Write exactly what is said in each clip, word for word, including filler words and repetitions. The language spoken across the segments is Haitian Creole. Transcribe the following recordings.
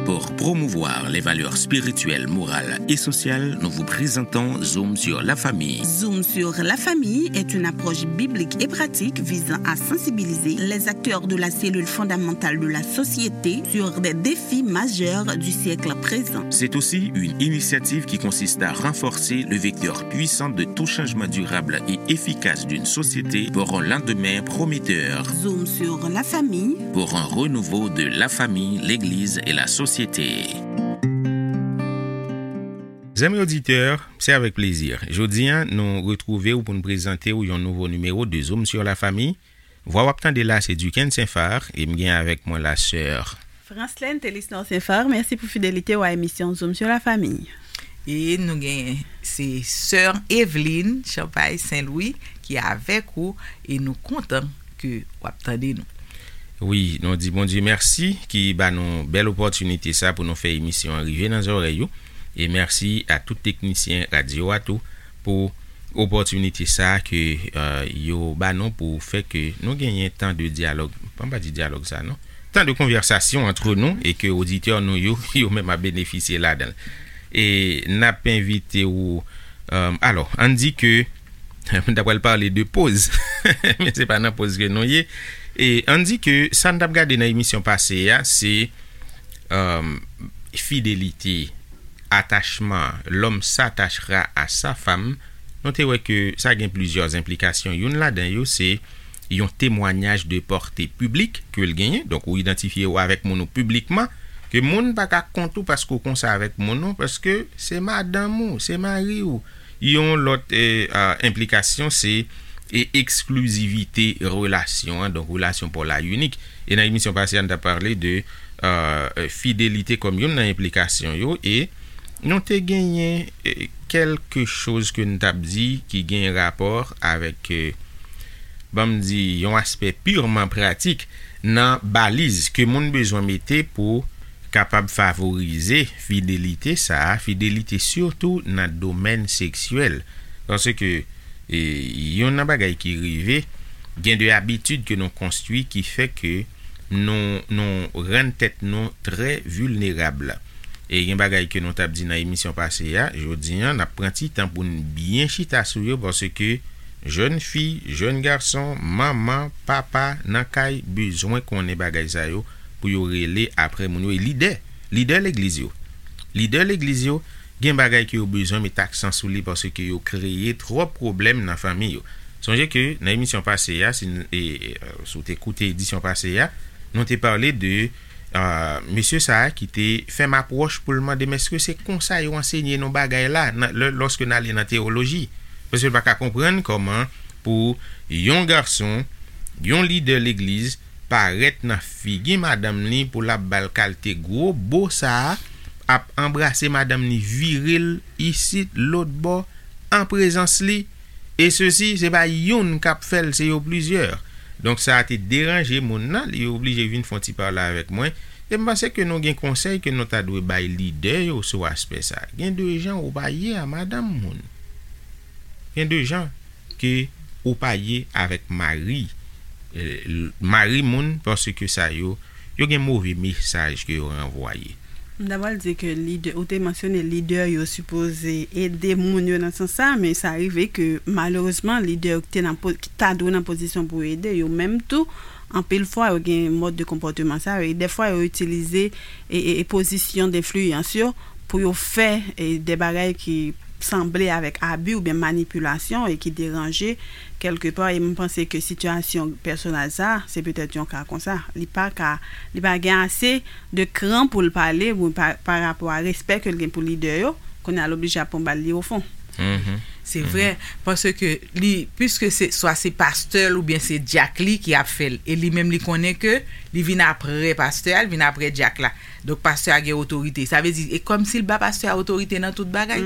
Pour promouvoir les valeurs spirituelles, morales et sociales, nous vous présentons Zoom sur la famille. Zoom sur la famille est une approche biblique et pratique visant à sensibiliser les acteurs de la cellule fondamentale de la société sur des défis majeurs du siècle présent. C'est aussi une initiative qui consiste à renforcer le vecteur puissant de tout changement durable et efficace d'une société pour un lendemain prometteur. Zoom sur la famille. Pour un renouveau de la famille, l'Église et la société. Zanmi oditè, se avèk plezi. Jodi a, nou retwouve w pou n prezante w yon nouvo nimewo de Zoom sur la famille. Vwa w ap tande la, se Duquesne Saint-Phar, e m gen avèk mwen la sè Franslène Telisnor Saint-Phar, mèsi pou fidelite w a emisyon Zoom sur la famille. E nou gen, se sè Evelyne Champagne Saint-Louis ki avèk ou, e nou kontan ke w ap tande nou. Wi, nou di Bondye mèsi ki ba nou bèl opòtinite sa pou nou fè emisyon an rive nan zòrèy ou. E mèsi a tout teknisyen radyo a tou pou opòtinite sa ke, euh, yo ba nou pou fè ke nou genyen tan de dyalòg. Bon, pa di dyalòg sa, non. Tan de konvèsasyon antre nou e ke oditè nou yo, yo menm ap benefisye ladan l. E n ap envite ou, euh, alò, ann di ke, m ta pral pale de poz, men se pa nan poz ke nou ye. E ann di ke sa n t ap gade nan emisyon pase a, se, euh, fidelite, atachman, l'homme s'attachera à sa femme, nou te wè ke sa gen plizyè enplikasyon. Youn ladan yo, se yon temwanyaj de pòte piblik ke l genyen. Donk, ou idantifye w avèk moun ou piblikman, ke moun pa ka kont ou paske w konsa avèk moun ou, paske se madanm ou, se mari w. Yon lòt, eh, ah, enplikasyon, se, eh, eksklizivite relasyon an, donk relasyon pa w la inik. E nan emisyon pase a, n t ap pale de, euh, fidelite kòm youn nan enplikasyon yo, e nou te genyen, eh, kèlke choz ke n t ap di ki gen rapò avèk, eh, ban m di, yon aspè pirman pratik nan baliz ke moun bezwen mete pou kapab favorize fidelite sa a, fidelite sitou nan domèn seksyèl. Paske, e, youn nan bagay ki rive, gen de abitid ke nou konstwi ki fè ke nou, nou rann tèt nou trè vilnerab. E gen bagay ke nou t ap di nan emisyon pase a, jodi a, n ap pran ti tan pou n byen chita sou yo, paske jèn fi, jèn gason, manman, papa, nan kay, bezwen konnen bagay sa yo pou yo rele aprè moun yo. E lidè, lidè legliz yo, lidè legliz yo, gen bagay ke yo bezwen met aksan sou li, paske yo kreye twòp pwoblèm nan fanmi yo. Sonje ke nan emisyon pase a, si n, e, e, si w te koute edisyon pase a, nou te pale de, ah, mesye sa a ki te fè m apwòch pou l mande m èske se konsa yo ansenye nou bagay la, nan, lè, lòske n ale nan teyoloji. Paske l pa ka konprann kòman pou yon gason, yon lidè legliz, parèt nan figi madanm li pou l ap ba l kalte gwo bo sa a, ap anbrase madanm li, vire l isit, lòt bò, an prezans li, e sesi, se pa youn k ap fè l, se yo plizyè. Donk, sa a te deranje moun nan, li oblije vin fè yon ti pale avèk mwen. E m panse ke nou gen konsèy ke nou ta dwe bay lidè yo sou aspè sa a. Gen de jan ou pa ye a madanm moun. Gen de jan ke ou pa ye avèk mari, eh, mari moun, paske sa yo, yo gen move mesaj ke yo ranvwaye. M ta pral di ke lidè, ou te mansyone lidè yo sipoze ede moun yo nan sans sa, men sa rive ke malerezman lidè yo ki te nan po-, ki ta dwe nan pozisyon pou ede yo menm tou, anpil fwa yo gen mòd de konpòteman sa yo, e dèfwa yo itilize e, e, e pozisyon denfliyans yo pou yo fè, e, de bagay ki sanble avèk abi oubyen manipilasyon e ki deranje kèlkepa. E m panse ke sitiyasyon pèsonèl sa, se petèt yon ka konsa. Li pa ka, li pa gen ase de kran pou l pale, ou pa, pa rapò a respè ke l gen pou lidè yo, kounye a l oblije ap pran bal li ofon. Se vre, paske li, piske se, swa se pastè l oubyen se dyak li ki ap fè l, e li menm li konnen ke li vin aprè pastè a, li vin aprè dyak la. Donk, pastè a gen otorite. Sa vle di, e kòmsi l ba pastè a otorite nan tout bagay.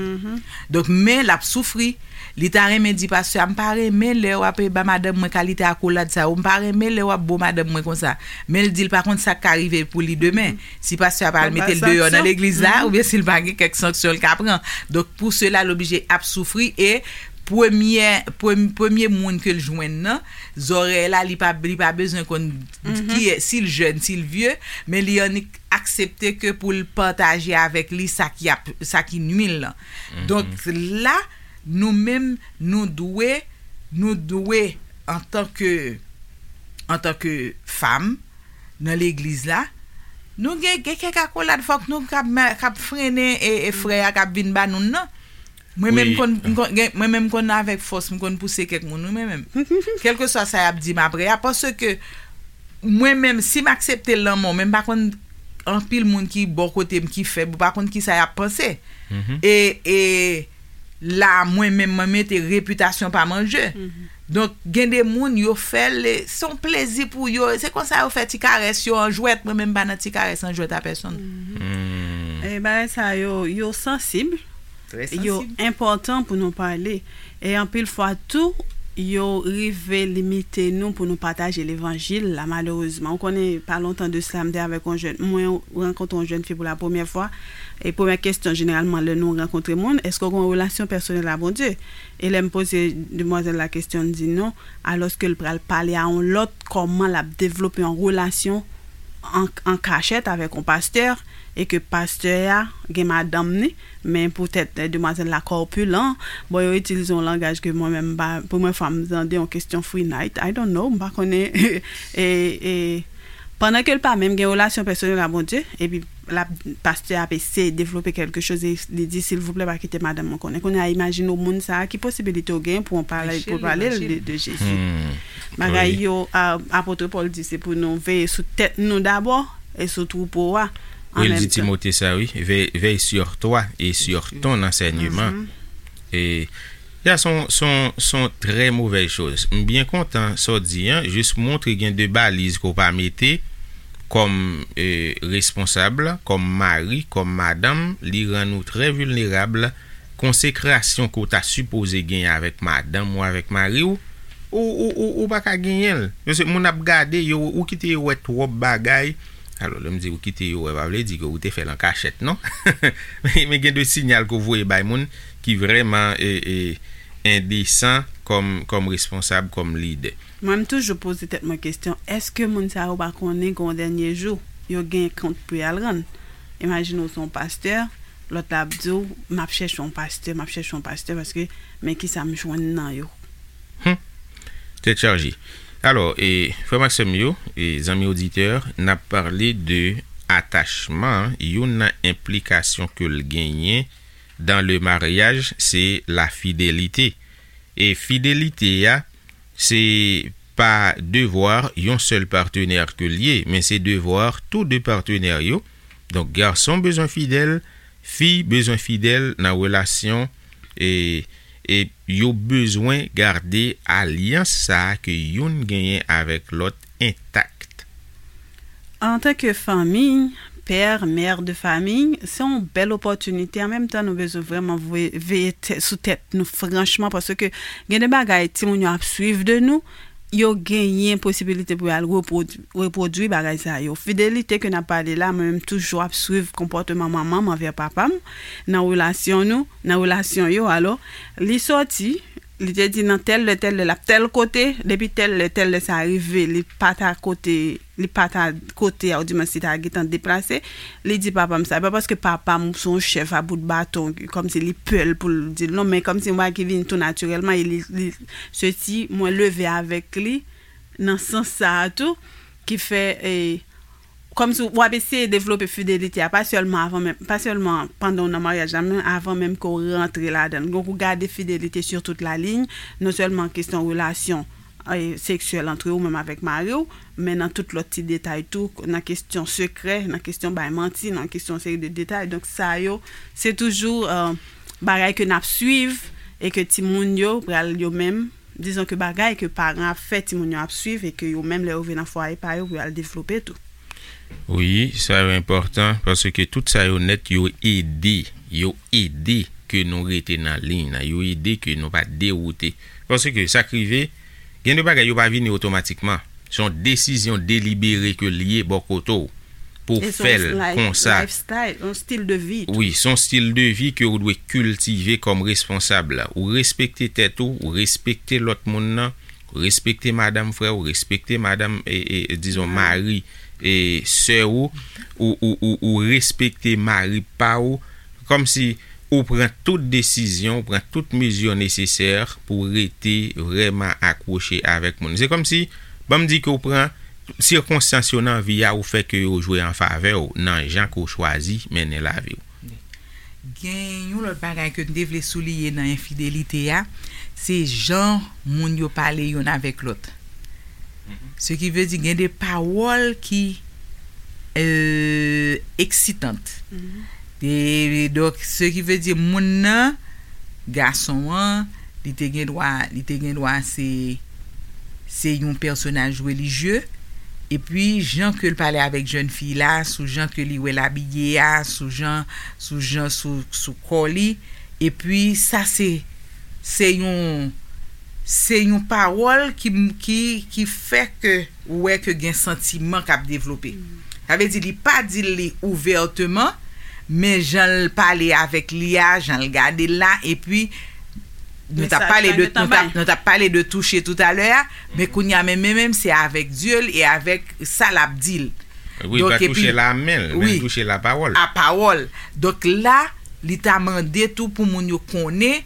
Donk, men l ap soufri. Li ta renmen di pastè a, "M pa renmen lè w ap ba madanm mwen kalite akolad sa yo. M pa renmen lè w ap bo madanm mwen konsa." Men l di l pa konn sa k ka rive pou li demen. Si pastè a pa al mete l deyò nan legliz la, oubyen si l pa gen kèk sanksyon l ka pran. Donk, pou sela, l oblije ap soufri e premyè, prem- premye moun ke l jwenn nan, zòrèy la, li pa, li pa bezwen konn ki, si l jèn, si l vye, men li annik aksepte ke pou l pataje avèk li sa ki ap, sa ki nwi l lan. Donk, la, nou menm, nou dwe, nou dwe, antanke, antanke fanm, nan legliz la, nou gen, gen kèk akolad fòk nou k ap, k ap frennen e, e frè a k ap vin ba nou nan. Mwen menm konn, m konn, gen, mwen menm konn avèk fòs, m konn pouse kèk moun, wi, mwen menm. Kèlkeswa sa y ap di m apre a, paske mwen menm, si m aksepte lanmò, men m pa konn anpil moun ki bò kote m ki fèb, ou pa konn kisa y ap panse. E, e la, mwen menm, mwen mete repitasyon pa m an je. Donk, gen de moun, yo fè l, se yon plezi pou yo. Se konsa yo fè ti karès yo an jwèt. Mwen menm, m pa nan ti karès an jwèt a pèsonn. E bagay sa yo, yo sansib. Yo enpòtan pou nou pale. E anpil fwa tou, yo rive limite nou pou nou pataje levanjil la, malerezman. Ou konnen, pa lontan de sila, m te avèk yon jèn, mwen rankontre yon jèn fi pou la premyè fwa. E premyè kesyon, jeneralman, lè nou rankontre moun, èske w gen yon relasyon pèsonèl a Bondye? E lè m poze demwazèl la kesyon, l di non, alòske l pral pale a yon lòt, kòman l ap devlope yon relasyon an, an kachèt avèk yon pastè, e ke pastè a gen madanm ni, men poutèt, eh, demwazèl la kòpilan, bon, yo itilize yon langaj ke mwen menm m pa, premyè fwa m tande yon kesyon free night, I don't know, m pa konnen, e, e, pandan ke l pa menm gen relasyon pèsonèl a Bondye, epi la, pastè a ap eseye devlope kèlke choz, e li di, silvouplè, pa kite madanm mwen konnen. Kounye a, imajine w moun sa a, ki posibilite w gen pou w pale, pou w pale l de, de Jezi. Bagay yo, a, apot Pòl di, se pou nou veye sou tèt nou dabò, e sou twoupo a. Wi, l di Timote sa, wi. Veille, veille sur toi et sur ton enseignement. E, ya, se yon, se yon, se yon trè movèz choz. M byen kontan sa w di an, jis montre gen de baliz ke w pa mete kòm, e, responsab, kòm mari, kòm madanm, li rann ou trè vilnerab. Konsekrasyon ke w ta sipoze genyen avèk madanm ou avèk mari w, ou, ou, ou, ou pa ka genyen l. Paske moun ap gade yo, ou kite yo wè twòp bagay. Alò, lè m di ou kite yo wè, pa vle di ke ou te fè l an kachèt, non. Men, men gen de sinyal ke w voye bay moun ki vrèman, e, e, endesan kòm, kòm responsab, kòm lidè. Mwen, m toujou poze tèt mwen kesyon, èske moun sa yo pa konnen gen yon dènye jou, yo gen kont pou y al rann? Imajine w se yon pastè, lòt la ap di w, m ap chèche yon pastè, m ap chèche yon pastè, paske men kisa m jwenn nan yo. Tèt chaje. Alò, e, frè m ak sè m yo, e, zanmi oditè, n ap pale de atachman, youn nan enplikasyon ke l genyen dans le mariage, se la fidelite. E fidelite a, se pa devwa yon sèl patnè ke l ye, men se devwa tou de patnè yo. Donk, gason bezwen fidèl, fi bezwen fidèl nan relasyon, e, e yo bezwen gade alyans sa a ke youn genyen avèk lòt entak. Antanke fanmi, pè, mè de fanmi, se yon bèl opòtinite. An menm tan, nou bezwen vrèman vwe- veye tè- sou tèt nou franchman, paske gen de bagay timoun yo ap swiv de nou, yo genyen posibilite pou y al repwodui, repwodui bagay sa yo. Fidelite ke n ap pale la, mwen menm toujou ap swiv konpòteman manman m anvè papa m nan relasyon nou, nan relasyon yo. Alò, li sòti, li te di nan tèl lè, tèl lè, l ap tèl kote, depi tèl lè, tèl lè sa rive, li pa ta kote, li pa ta kote a, oudimwens li ta gentan deplase, li di papa m sa. E pa paske papa m se yon chèf a bout baton, kòmsi li pè l pou l di l non, men kòmsi yon bagay ki vin tou natirèlman, e li, li, se ti mwen leve avèk li nan sans sa a tou, ki fè, e, kòmsi w ap eseye devlope fidelite a, pa sèlman avan menm, pa sèlman pandan w nan maryaj la, men avan menm ke w rantre ladan l. Donk, ou gade fidelite sur toute la ligne, non sèlman kesyon relasyon, e, seksyèl antre ou menm avèk mari w, men nan tout lòt ti detay tou, nan kesyon sekrè, nan kesyon bay manti, nan kesyon seri de detay. Donk, sa yo, se toujou, e, bagay ke n ap swiv e ke timoun yo pral yo menm, dizon ke bagay ke paran ap fè, timoun yo ap swiv e ke yo menm lè yo vin nan fwaye pa yo pou y al devlope tou. Wi, sa yo enpòtan, paske tout sa yo nèt, yo ede, yo ede ke nou rete nan liy nan, yo ede ke nou pa dewoute. Paske sa k rive, gen de bagay yo pa vini otomatikman. Se yon desizyon delibere ke l ye bò kote w. pou w fè l konsa. Lifestyle, yon stil de vi tou. Wi, se yon stil de vi ke ou dwe kiltive kòm responsab. Ou respekte tèt ou, ou respekte lòt moun nan, ou respekte madanm frè ou, respekte madanm, e, e, dizon, mari, e, sè ou, ou, ou, ou, ou respekte mari pa ou, kòmsi ou pran tout desizyon, ou pran tout mezi nesesè pou w rete vrèman akwoche avèk moun. Se kòmsi, ban m di ke w pran sikonstans yo nan vi a, ou fè ke yo jwe an favè w nan jan ke w chwazi mennen lavi w. Gen yon lòt bagay ke m te vle souliye nan enfidelite a, se jan moun yo pale yonn avèk lòt. Se ki vle di gen de pawòl ki euh, eksitant. E, donk, se ki vle di moun nan, gason an, li te gen dwa, li te gen dwa se se yon pèsonaj relijye. Epi, jan ke l pale avèk jèn fi la, sou jan ke li wè l abiye a, sou jan, sou jan, sou, sou kò li. Epi, sa se, se yon, se yon pawòl ki, ki, ki fè ke ou wè ke gen santiman k ap devlope. Sa vle di, li pa di l li ouvèteman, men jan l pale avèk li a, jan l gade l la, epi nou t ap pale de, nou t ap, nou t ap pale de touche toutalè a, men kounye a menm, menm, menm, se avèk zye l e avèk sa l ap di l. Wi, pa touche l a men l, men l touche l a pawòl. A pawòl. Donk la, li ta mande tou pou moun yo konnen,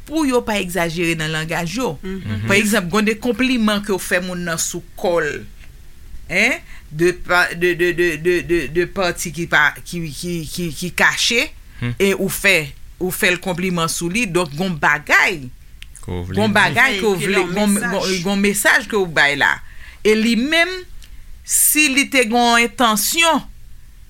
pou yo pa egzajere nan langaj yo. Pa egzanp, gen de konpliman ke w fè moun nan sou kò l, en, de, pa- de, de, de, de, de, de pati ki pa, ki, ki, ki, ki kache, e ou fè, ou fè l konpliman sou li, donk gon bagay, gon bagay ke w vle, gon, gon, gon mesaj ke w bay la. E li menm, si li te gon entansyon,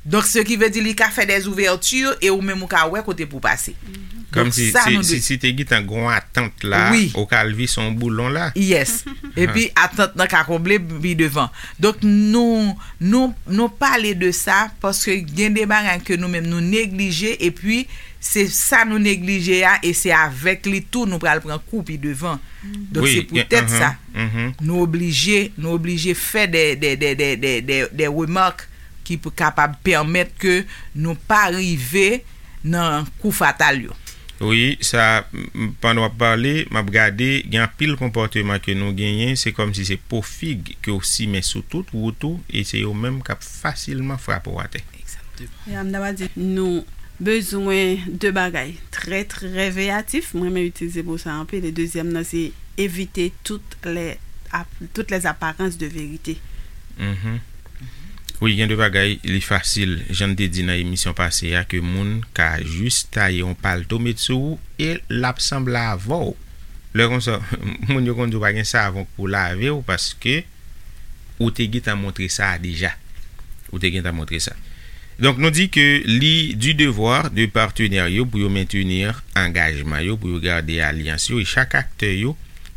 donk, se ki vle di li ka fè des ouvertures e ou menm ou ka wè kote pou pase. Donk, Kòmsi sa si, nou si, dwe. Si te gentan gon atant la, Wi. Ou ka lvi son boulon la. Yes. Epi atant nan ka konble pi devan. Donk, nou, nou, nou pale de sa paske gen de bagay ke nou menm nou neglije epi se sa nou neglije a e se avèk li tou nou pral pran kou pi devan. Donk, Wi, se poutèt sa. Nou oblije, nou oblije fè de, de, de, de, de, de, de remak ki pou kapab pèmèt ke nou pa rive nan kou fatal yo. Wi, sa, m- pandan w ap pale, m ap gade, gen anpil konpòteman ke nou genyen, se kòmsi se po fig ke w simen sou tout wout ou, e se yo menm k ap fasilman frape w atè. Egzakteman. Ya, m ta pral di, nou bezwen de bagay trè, trè veyatif. Mwen renmen itilize mo sa anpil. E dezyèm nan, se evite tout lè ap- toutes les apparences de vérité. Wi, gen de bagay, li fasil, jan n te di nan emisyon pase a, ke moun ka jis taye yon palto met sou ou e l ap sanble avè w. Lè konsa, moun yo konn di w pa gen savon pou lave w paske ou te gentan montre sa deja. Ou te gentan montre sa. Donk, nou di ke li du devoir de partenaire yo pou yo mentenir angajman yo, pou yo gade alyans yo, e chak aktè yo,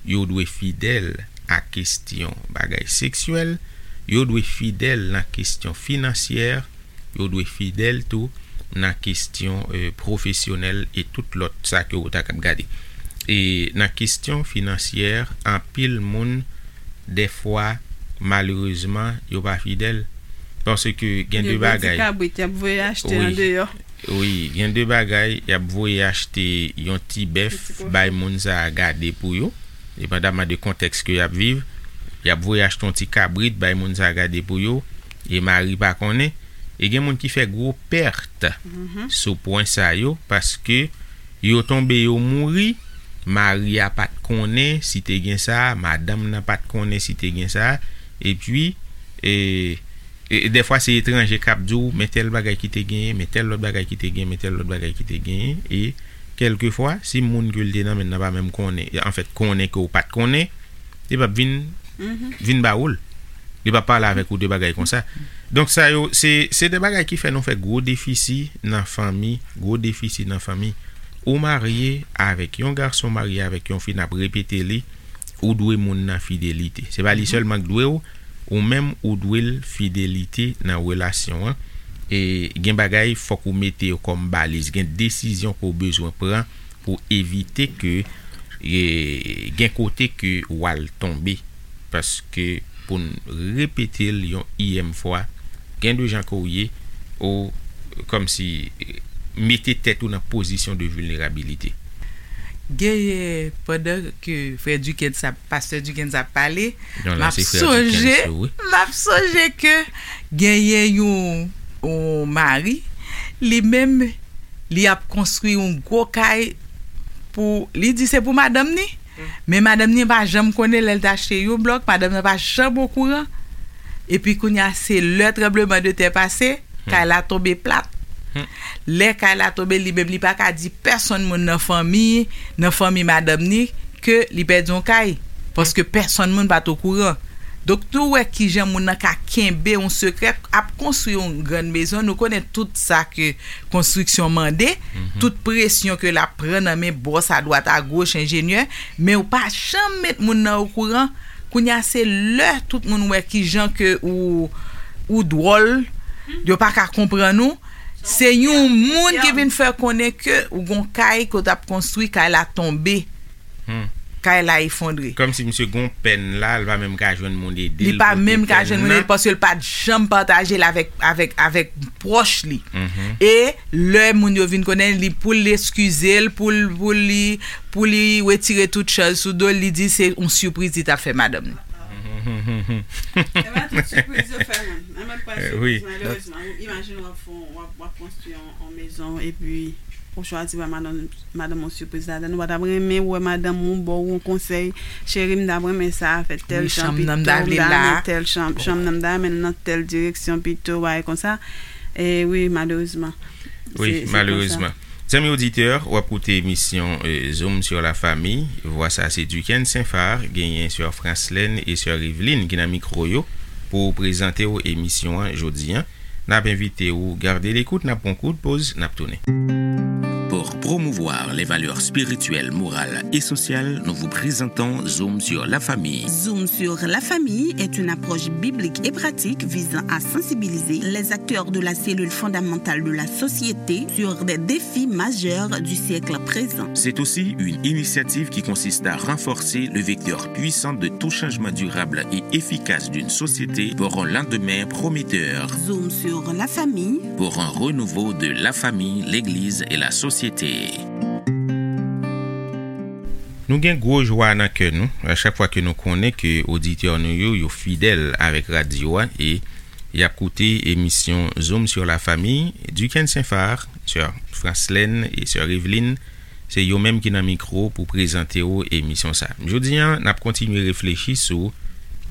yo dwe fidèl a kesyon bagay seksyèl, yo dwe fidèl nan kesyon finansyè, yo dwe fidèl tou nan kesyon, euh, pwofesyonèl e tout lòt sa ke ou ta kab gade. E nan kesyon finansyè, anpil moun, dèfwa, malerezman, yo pa fidèl. Paske gen de Yo gen ti bagay. Kabrit, y ap voye achte Wi. Andeyò. Wi, gen de bagay, y ap voye achte yon ti bèf, Yon ti kochon. Bay moun sa a gade pou yo, depandaman de kontèks ke y ap viv, y ap voye achte yon ti kabrit, bay moun sa a gade pou yo, e mari pa konnen. E gen moun ki fè gwo pèt sou pwen sa yo, paske yo tonbe, yo mouri, mari a pa t konnen si te gen sa, madanm nan pa t konnen si te gen sa, epi, e, e, dèfwa se etranje k ap di w, men tèl bagay ki te genyen, men tèl lòt bagay ki te genyen, men tèl lòt bagay ki te genyen, e kèlkefwa, si moun ke l te nan men l nan pa menm konnen, anfèt, konnen ke w pa t konnen, li p ap vin, vin ba ou l. Li p ap pale avèk ou de bagay konsa. Donk, sa yo, se, se de bagay ki fè nou fè gwo defisi nan fanmi, gwo defisi nan fanmi. Ou marye avèk yon gason, marye avèk yon fi, n ap repete li, ou dwe moun nan fidelite. Se pa li sèlman k dwe w, ou menm ou dwe l fidelite nan relasyon an. E gen bagay, fòk ou mete yo kòm baliz. Gen desizyon ke w bezwen pran pou evite ke, e, gen kote ke w al tonbe. Paske pou n repete l yon iyèm fwa, Gen de jan ke w ye, ou kòmsi mete tèt ou nan pozisyon de vilnerabilite. Genyen, pandan ke frè Duckens ap, pastè Duckens ap pale, m ap sonje, m ap sonje ke genyen yon, yon mari, li menm, li ap konstwi yon gwo kay pou, li di se pou madanm ni, men madanm ni pa janm konnen lè l te achte yon blòk, madanm nan pa janm okouran. Epi kounye a, se lè tranblemanntè pase, kay la tonbe plat. Lè kay la tonbe, li menm li pa ka di pèsonn moun nan fanmi, nan fanmi madanm ni, ke li pèdi yon kay. Paske pèsonn moun pa t okouran. Donk, nou wè kijan moun nan ka kenbe yon sekrè, ap konstwi yon grann mezon. Nou konnen tout sa ke konstriksyon mande, tout presyon ke l ap pran nan men bòs adwat agoch, enjenyè, men ou pa janm met moun nan okouran. Kounye a, se lè tout moun wè kijan ke ou, ou dwòl, yo pa ka konprann ou. Se yon moun ki vin fè konnen ke ou gon kay ke w t ap konstwi, kay la tonbe. Kay la efondre. Kòmsi misye gon pèn la, li pa menm ka jwenn moun ede l. Li pa menm ka jwenn moun ede l paske l pa t janm pataje l avèk, avèk, avèk pwòch li. E lè moun yo vin konnen li, pou l eskize l, pou l, pou li, pou li retire tout chaj sou do l, li di se yon sipriz li t ap fè madanm li. Se pa tout sipriz yo fè moun. Nan menm pwen sipriz, malerezman. Imajine w ap fè, w ap, w ap konstwi yon, yon mezon, epi ou chwazi ba madanm, madanm yon sipriz ladan. Ou pa t ap renmen wè madanm ou ba w yon konsèy, cheri, m t ap renmen sa, fè tèl jan pito, m ta renmen tèl chanm, chanm nan m ta renmen nan tèl direksyon pito, bagay konsa. E wi, malerezman. Wi, malerezman. Zanmi oditè, w ap koute emisyon, eh, Zoom sur la famille. Vwa sa se Duckens Saint-Phar, genyen sè Franslène e sè Eveline ki nan mikwo yo pou prezante w emisyon an jodi an. N ap envite w gade lekout, n ap pran kout poz, n ap tounen. Pour promouvoir les valeurs spirituelles, morales et sociales, nous vous présentons Zoom sur la famille. Zoom sur la famille est une approche biblique et pratique visant à sensibiliser les acteurs de la cellule fondamentale de la société sur des défis majeurs du siècle présent. C'est aussi une initiative qui consiste à renforcer le vecteur puissant de tout changement durable et efficace d'une société pour un lendemain prometteur. Zoom sur la famille. Pour un renouveau de la famille, l'Église et la société. Nou gen gwo jwa nan kè nou, a chak fwa ke nou konnen ke oditè nou yo, yo fidèl avèk radyo a e y ap koute emisyon Zoom sur la famille. Duckens Saint-Phar, sè Franslène e sè Eveline, se yo menm ki nan mikwo pou prezante w emisyon sa. Jodi a, n ap kontinye reflechi sou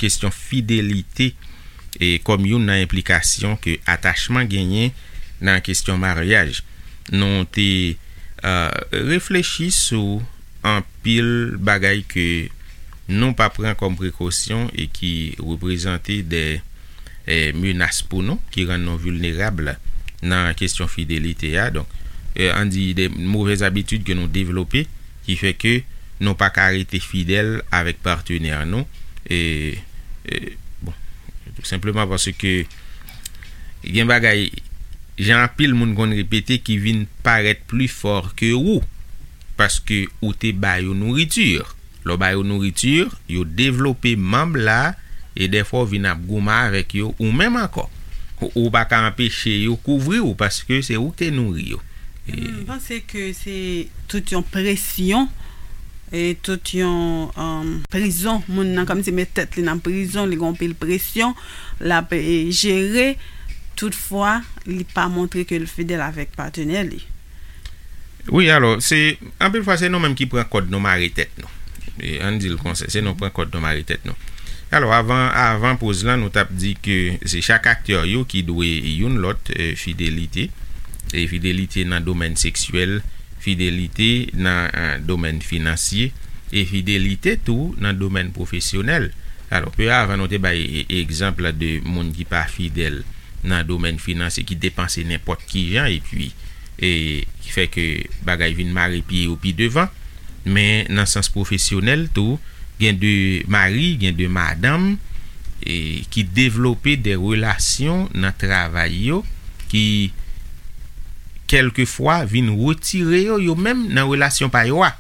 kesyon fidelite e kòm youn nan enplikasyon ke atachman genyen nan kesyon maryaj. Nou te, eh, reflechi sou anpil bagay ke nou pa pran kòm prekosyon e ki reprezante de, eh, menas pou nou, ki rann nou vilnerab nan kesyon fidelite a. Donk, eh, ann di de movèz abitid ke nou devlope, ki fè ke nou pa ka rete fidèl avèk patnè nou. E, e, bon, tou senpleman paske gen bagay, jan anpil moun konn repete, ki vin parèt pli fò ke ou, paske ou te ba yo nouriti. Lè w ba yo nouriti, yo devlope manb la, e dèfwa w vin ap goumen avèk yo ou menm ankò. Ou, ou pa ka anpeche yo kouvri w, paske se ou ki te nouri yo. E m panse ke se tout yon presyon, e tout yon, um, prizon. Moun nan kòmsi met tèt li nan prizon, li gen anpil presyon, l ap, e, jere. Toutfwa, li pa montre ke l fidèl avèk patnè li. Wi, alò, se, anpil fwa, se nou menm ki pran kòd nou mare tèt nou. E, ann di l konsa, se nou pran kòd nou mare tèt nou. Alò, avan, avan poz lan, nou t ap di ke se chak aktè yo ki dwe youn lòt, e, fidelite. E fidelite nan domèn seksyèl, fidelite nan, e, domèn finansye, e fidelite tou nan domèn pwofesyonèl. Alò, pi avan, nou te bay e, egzanp de moun ki pa fidèl nan domèn finansye, ki depanse nenpòt ki jan, epi, e, ki fè ke bagay vin mare pye yo pi devan. Men nan sans pwofesyonèl tou, gen de mari, gen de madanm, e, ki devlope de relasyon nan travay yo, ki kèlkefwa vin retire yo, yo menm, nan relasyon pa yo a.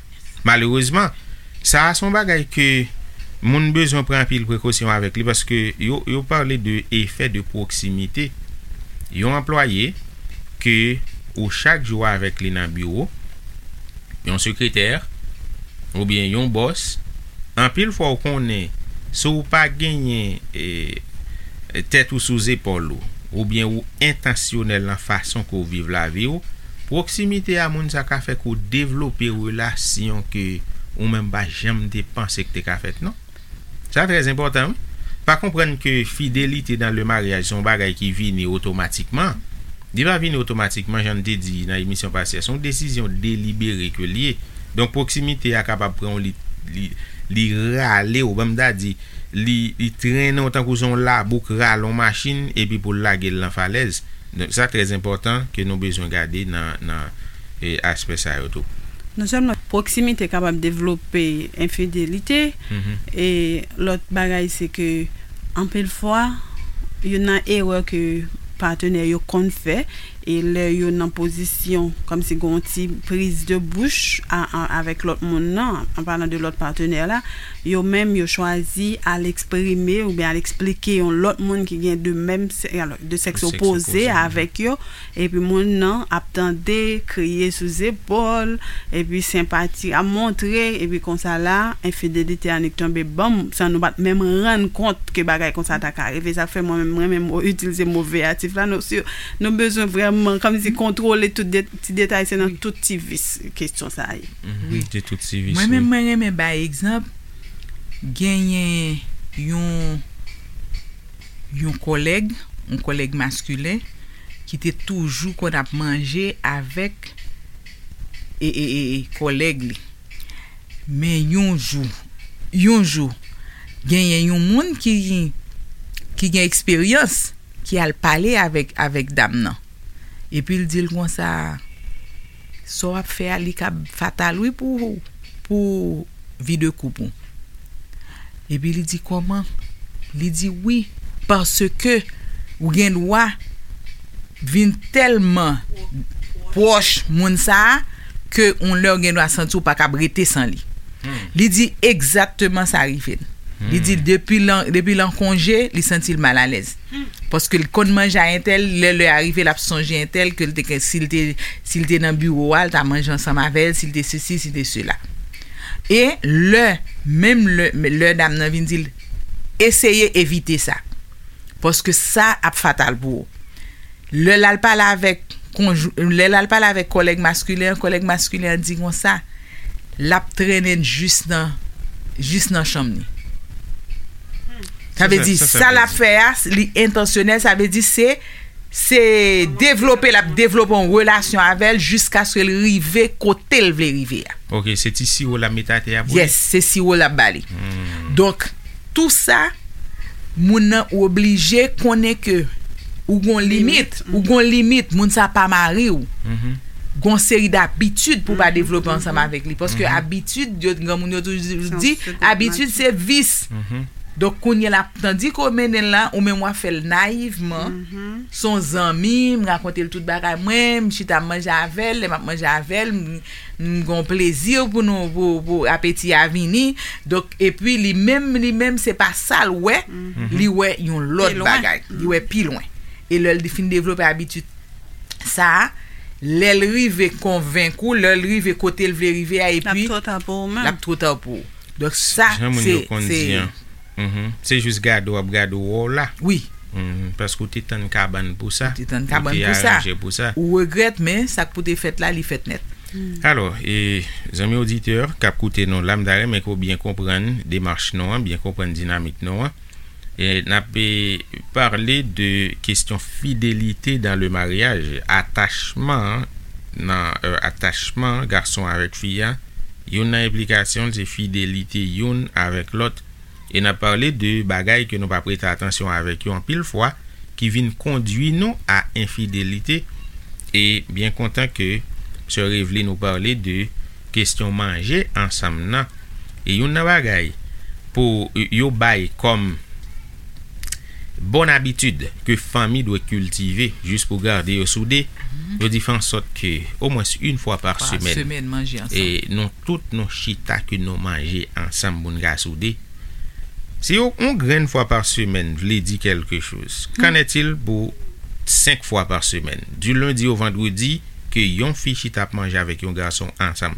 Malerezman, sa a se yon bagay ke moun bezwen pran anpil prekosyon avèk li, paske yo, yo pale de efè de pwoksimite. yon anplwaye ke ou chak jou avèk li nan biwo, yon sekretè, oubyen yon bòs, anpil fwa ou konnen si w pa genyen, e, tèt ou sou zepòl ou, oubyen ou entansyonèl nan fason ke w viv lavi w, pwoksimite a moun sa ka fè ke w devlope relasyon ke ou menm pa janm te panse ke te ka fèt, non. Sa trè enpòtan, wi. Pa konprann ke fidelite dans le mariage se yon bagay ki vini otomatikman. Li pa vini otomatikman, jan n te di nan emisyon pase a. Se yon desizyon delibere ke l ye. Donk, pwoksimite a kapab pran w, li, li, li rale w, ban m ta di, li, li trennen w tankou se yon labou k rale yon machin, epi pou l lage l nan falèz. Donk, sa trè enpòtan ke nou bezwen gade nan, nan, e, aspè sa yo tou. Non sèlman pwoksimite kapab devlope enfidelite, e lòt bagay se ke anpil fwa, youn nan erè ke patenè yo konn fè, e lè yo nan pozisyon kòmsi gen yon ti priz de bouch a, a, avèk lòt moun nan, an palan de lòt patenè la, yo menm yo chwazi al eksprime oubyen al eksplike yon lòt moun ki gen de menm sè-, alò, de sèks opoze avèk yo, epi moun nan ap tande, kriye sou zepòl, epi senpati ap montre, epi konsa la, enfidelite a annik tonbe ban m, san nou pa t menm rann kont ke bagay konsa ta ka rive. Sa fè mwen menm, mwen menm, mo, itilize mo veyatif la, nou, si, nou bezwen vrèman, kòmsi, kontwole tout de, ti detay, se nan tout ti vis kesyon sa a ye. Wi. De tout ti vis, mwen menm, wi. Mwen renmen bay egzanp, genyen yon, yon kòlèg, yon kòlèg maskilen, ki te toujou konn ap manje avèk, e, e, e, e, kòlèg li. Men yon jou, yon jou, genyen yon moun ki, ki gen eksperyans, ki al pale avèk, avèk dam nan. Epi l di l konsa, sa w ap fè a, li kab fatal, wi, pou, pou vi de koup ou. Epi li di, kòman? Li di, wi, paske ou gen dwa vin tèlman pwòch moun sa a, ke yon lè ou gen dwa santi ou pa kab rete san li. Li di, egzakteman sa rive l. Li di, depi l an, depi l an konje, li santi l malalèz. Paske l konn manje a entèl, lè lè a rive, l ap sonje entèl, ke l te, si l te, si l te nan biwo a, l ta manje ansanm avè l, si l te sesi, si l te sela. E lè, menm lè, lè dam nan vin di l, eseye evite sa. Paske sa ap fatal pou ou. Lè l al pale avèk konjou-, lè l al pale avèk kòlèg maskilen an, kòlèg maskilen an di konsa, l ap trennen l jis nan, jis nan chanm li. Sa vle di, sa l ap fè a, li entansyonèl, sa vle di se, se devlope, l ap devlope yon relasyon avè l jiskaske l rive kote l vle rive a. Ok, se ti siwo l ap mete atè a pou li? Yes, se siwo l ap ba li. Donk, tou sa, moun nan oblije konnen ke ou gon limit, ou gon limit, moun sa pa mari w. Gon seri dabitid pou w pa devlope ansanm avèk li. Paske abitid, yo, granmoun yo toujou di, abitid se vis. Donk, kounye a la, tandike w mennen l la, ou menm w ap fè l nayivman, se yon zanmi, m rakonte l tout bagay mwen, m chita m manje avè l, lè m ap manje avè l, m, m gon plezi pou nou, pou, pou apeti a vini. Donk, epi li menm, li menm, se pa sa l wè, li wè yon lòt bagay, li wè pi lwen. E lè l fin devlope abitid sa a, lè l rive konvenk ou, lè l rive kote l vle rive a, epi l ap twò ta pou ou menm. L ap twò ta pou ou. Donk, sa, jan moun yo konn di an. Se jis gade w ap gade w wè w la. Wi. Paske w te tann kabann pou sa. Ou te tann kabann pou sa. Ou te aranje pou sa. Ou regrèt, men sa k pou te fèt la, li fèt nèt. Alò, e, zanmi oditè k ap koute nou la, m ta renmen ke w byen konprann demach nou an, byen konprann dinamik nou an. E n ap, e, pale de kesyon fidelite dans le mariage, atachman nan, e, atachman gason avèk fi a, youn nan enplikasyon l se fidelite youn avèk lòt. E n ap pale de bagay ke nou pa prete atansyon avèk yo anpil fwa, ki vin kondwi nou a enfidelite. E byen kontan ke sè Reveline ou pale de kesyon manje ansanm nan. E youn nan bagay pou yo bay kòm bòn abitid ke fanmi dwe kiltive jis pou gade yo soude, yo di fè ansòt ke omwens yon fwa pa semèn, e nou tout nou chita ke nou manje ansanm pou n ka soude. Si yon, yon grenn fwa pa semèn vle di kèlke choz, qu'en est-il pou senk fwa pa semèn, di lendi o vandredi, ke yon fi chita ap manje avèk yon gason ansanm.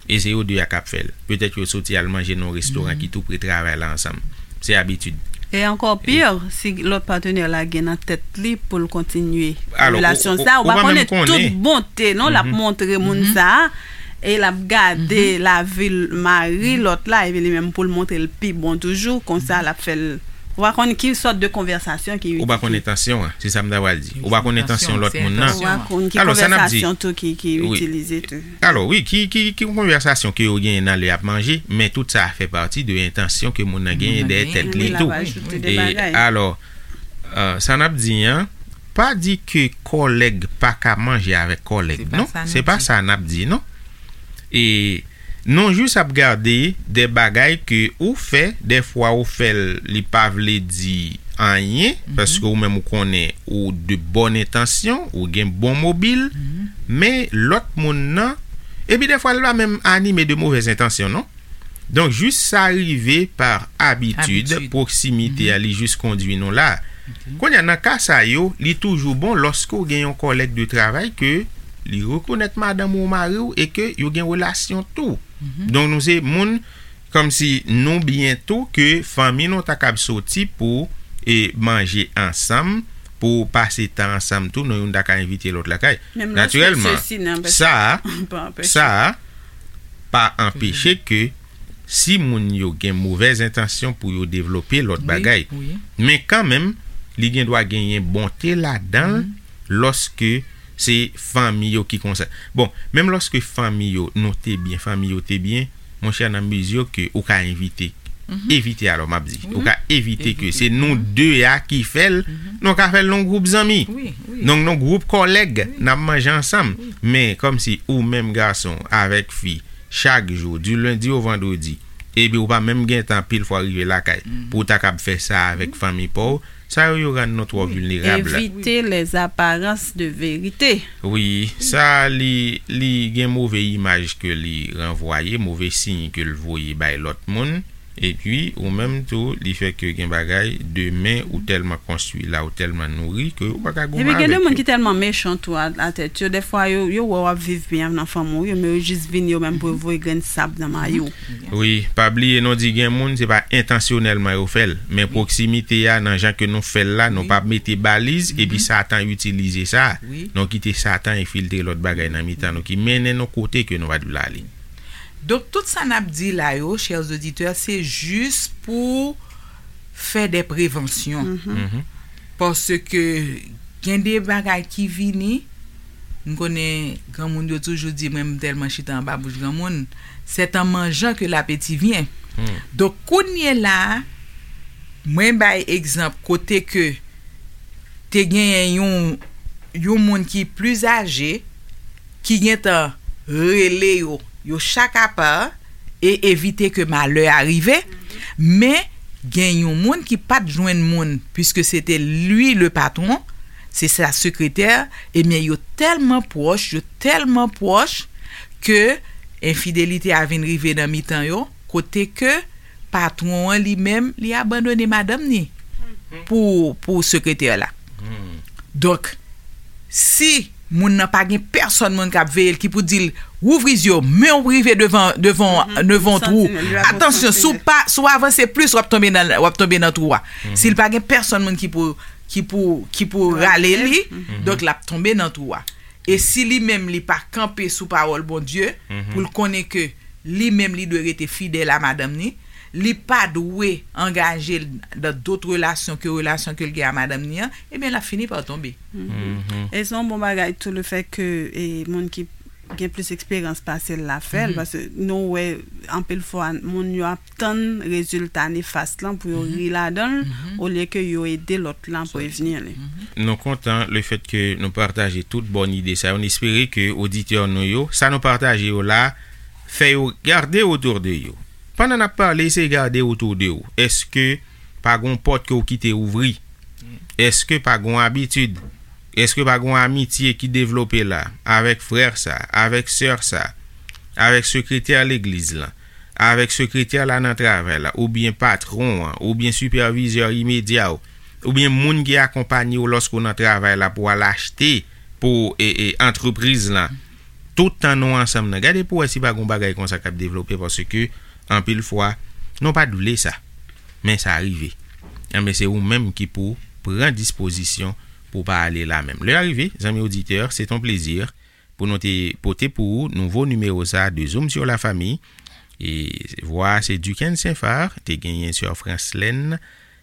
E se yo de a k ap fè l. Petèt yo soti al manje nan yon restoran ki tou pre travay la ansanm. Se abitid. E ankò pi, si lòt patnè la gen nan tèt li pou l kontinye relasyon sa, ou pa konnen tout bonte non l ap montre moun sa a, e l ap gade lavi l mari lòt la, epi li menm pou l montre l pi bon toujou, konsa l ap fè l. Ou pa konn ki sòt de konvèsasyon ki itilize. Ou pa konn entansyon an, se sa m ta pral di. Ou pa konn entansyon lòt moun nan. Ou pa konn ki konvèsasyon tou ki itilize tou. Alò, wi, ki, ki, ki konvèsasyon ke yo genyen nan lè y ap manje, men tout sa fè pati de entansyon ke moun nan genyen dèyè tèt li tou. E alò, sa n ap di an, pa di ke kòlèg pa ka manje avèk kòlèg, non. Se pa sa n ap di, non. E nou jis ap gade de bagay ke ou fè, dèfwa ou fè l, li pa vle di anyen, paske ou menm ou konnen ou de bòn entansyon, ou gen bon mobil, men lòt moun nan, epi dèfwa l pa menm anime de movèz entansyon, non. Donk, jis sa rive pa abitid, pwoksimite a, li jis kondui nou la. Kounye a, nan ka sa yo, li toujou bon lòske w gen yon kòlèg de travay ke li rekonèt madanm ou, mari w, e ke yo gen relasyon tou. Donk, nou se moun kòmsi nou byen tou ke fanmi nou ta kab soti pou e manje ansanm, pou pase tan ansanm tou, nou youn ta ka envite lòt lakay. Natirèlman, sa a, sa a pa anpeche ke si moun yo gen movèz entansyon pou yo devlope lòt bagay. Men kanmenm, li gen dwa genyen bonte ladan l lòske se fanmi yo ki konsa. Bon, menm lòske fanmi yo, nou te byen, fanmi yo te byen, monchè, nan mezi ke ou ka envite, evite alò, m ap di, ou ka evite ke se nou de a ki fè l, nou ka fè l nan gwoup zanmi, nan gwoup kòlèg, n ap manje ansanm. Men kòmsi ou menm gason avèk fi, chak jou, di lendi o vandredi, epi ou pa menm gen tan pil fwa rive lakay pou w ta kab fè sa avèk fanmi pa w, sa yo, yo rann nou twò vilnerab. Evite les apparences de vérité. Wi, sa li, li gen move imaj ke li ranvwaye, move siy ke l voye bay lòt moun. Epi, ou menm tou, li fè ke gen bagay, demen, ou tèlman konstwi la, ou tèlman nouri, ke ou pa ka gon mal avèk yo. Epi gen de moun ki tèlman mechan tou a, a tèt yo, dèfwa yo, yo wè w ap viv byen nan fanmi w yo, men yo jis vin yo menm pou yo voye grenn sab nan mayo w. Wi, pa bliye non, di gen moun, se pa entansyonèlman yo fè l, men pwoksimite a, nan jan ke nou fè l la, nou pa mete baliz, epi Satan itilize sa. Nou kite Satan enfiltre lòt bagay nan mitan nou, ki mennen nou kote ke nou pa t vle ale. Donk, tout sa n ap di la yo, chers auditeurs, se jis pou fè de prevansyon. Paske gen de bagay ki vini, m konnen granmoun yo toujou di, mwen m tèlman chita anba bouch granmoun, c'est en mangeant que l'appétit vient. Donk, kounye la, mwen bay egzanp kote ke te genyen yon, yon moun ki pli aje, ki gentan rele yo, yo chak apa, e evite ke malè a rive. Men, gen yon moun ki pa t jwenn moun, puiske se te li le patron, se sa sekretè, ebyen, yo tèlman pwòch, yo tèlman pwòch, ke enfidelite a vin rive nan mitan yo, kote ke patwon an li menm, li abandone madanm ni pou, pou sekretè la. Donk, si moun nan pa gen pèsonn moun k ap veye l ki pou di l, "Wouvri zye w, men w rive devan, devan, devan w twou." Atansyon, si w pa, si w avanse plis, w ap tonbe nan, w ap tonbe nan twou a. Si l pa gen pèsonn moun ki pou, ki pou, ki pou rale li, donk l ap tonbe nan twou a. E si li menm li pa kanpe sou pawòl Bondye, pou l konnen ke li menm li dwe rete fidèl a madanm ni, li pa dwe angaje l dan dòt relasyon ke relasyon ke l gen a madanm ni an, ebyen, l ap fini pa tonbe. E se yon bon bagay tou, lefèt ke, e, moun ki gen plis eksperyans pase l la fè l, paske nou wè anpil fwa moun yo ap tann rezilta nefas lan pou yo ri ladan l, olye ke yo ede lòt lan prevni li. Nou kontan lefèt ke nou pataje tout bòn ide sa yo. Nou espere ke oditè nou yo, sa nou pataje yo la, fè yo gade otou de yo. Pandan n ap pale, eseye gade otou de ou. Èske pa gon pòt ke w kite ouvri? Èske pa gon abitid? Èske pa gon amitye ki devlope la avèk frè sa, avèk sè sa, avèk sekretè legliz lan, avèk sekretè la nan travay la, oubyen patwon an, oubyen sipèvizè imedya w, oubyen moun ki akonpanye w lòske w nan travay la pou w al achte pou e, e, antrepriz lan, tout tan nou ansanm nan, gade pou w wè si pa gen yon bagay konsa k ap devlope, paske anpil fwa, nou pa t vle sa. Men sa rive. Enben, se ou menm ki pou pran dispozisyon pou w pa ale la menm. Lè a rive, zanmi oditè, se ton plezi pou nou te pote pou ou nouvo nimewo sa de Zoom sur la famille. E vwa se Duquesne Saint-Phar, te genyen sè Franslèn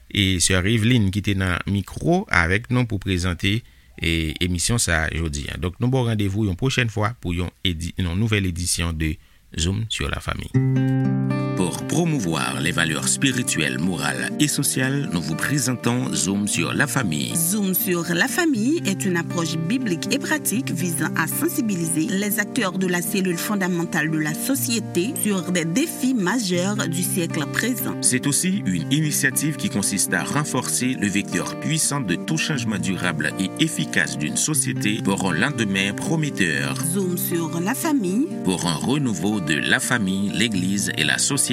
e sè Eveline ki te nan mikwo avèk nou pou prezante e, emisyon sa jodi a. Donk, nou ba w randevou yon pwochèn fwa pou yon, edi, yon nouvèl edisyon de Zoom sur la famille. Pour promouvoir les valeurs spirituelles, morales et sociales, nous vous présentons Zoom sur la famille. Zoom sur la famille est une approche biblique et pratique visant à sensibiliser les acteurs de la cellule fondamentale de la société sur des défis majeurs du siècle présent. C'est aussi une initiative qui consiste à renforcer le vecteur puissant de tout changement durable et efficace d'une société pour un lendemain prometteur. Zoom sur la famille. Pour un renouveau de la famille, l'Église et la société.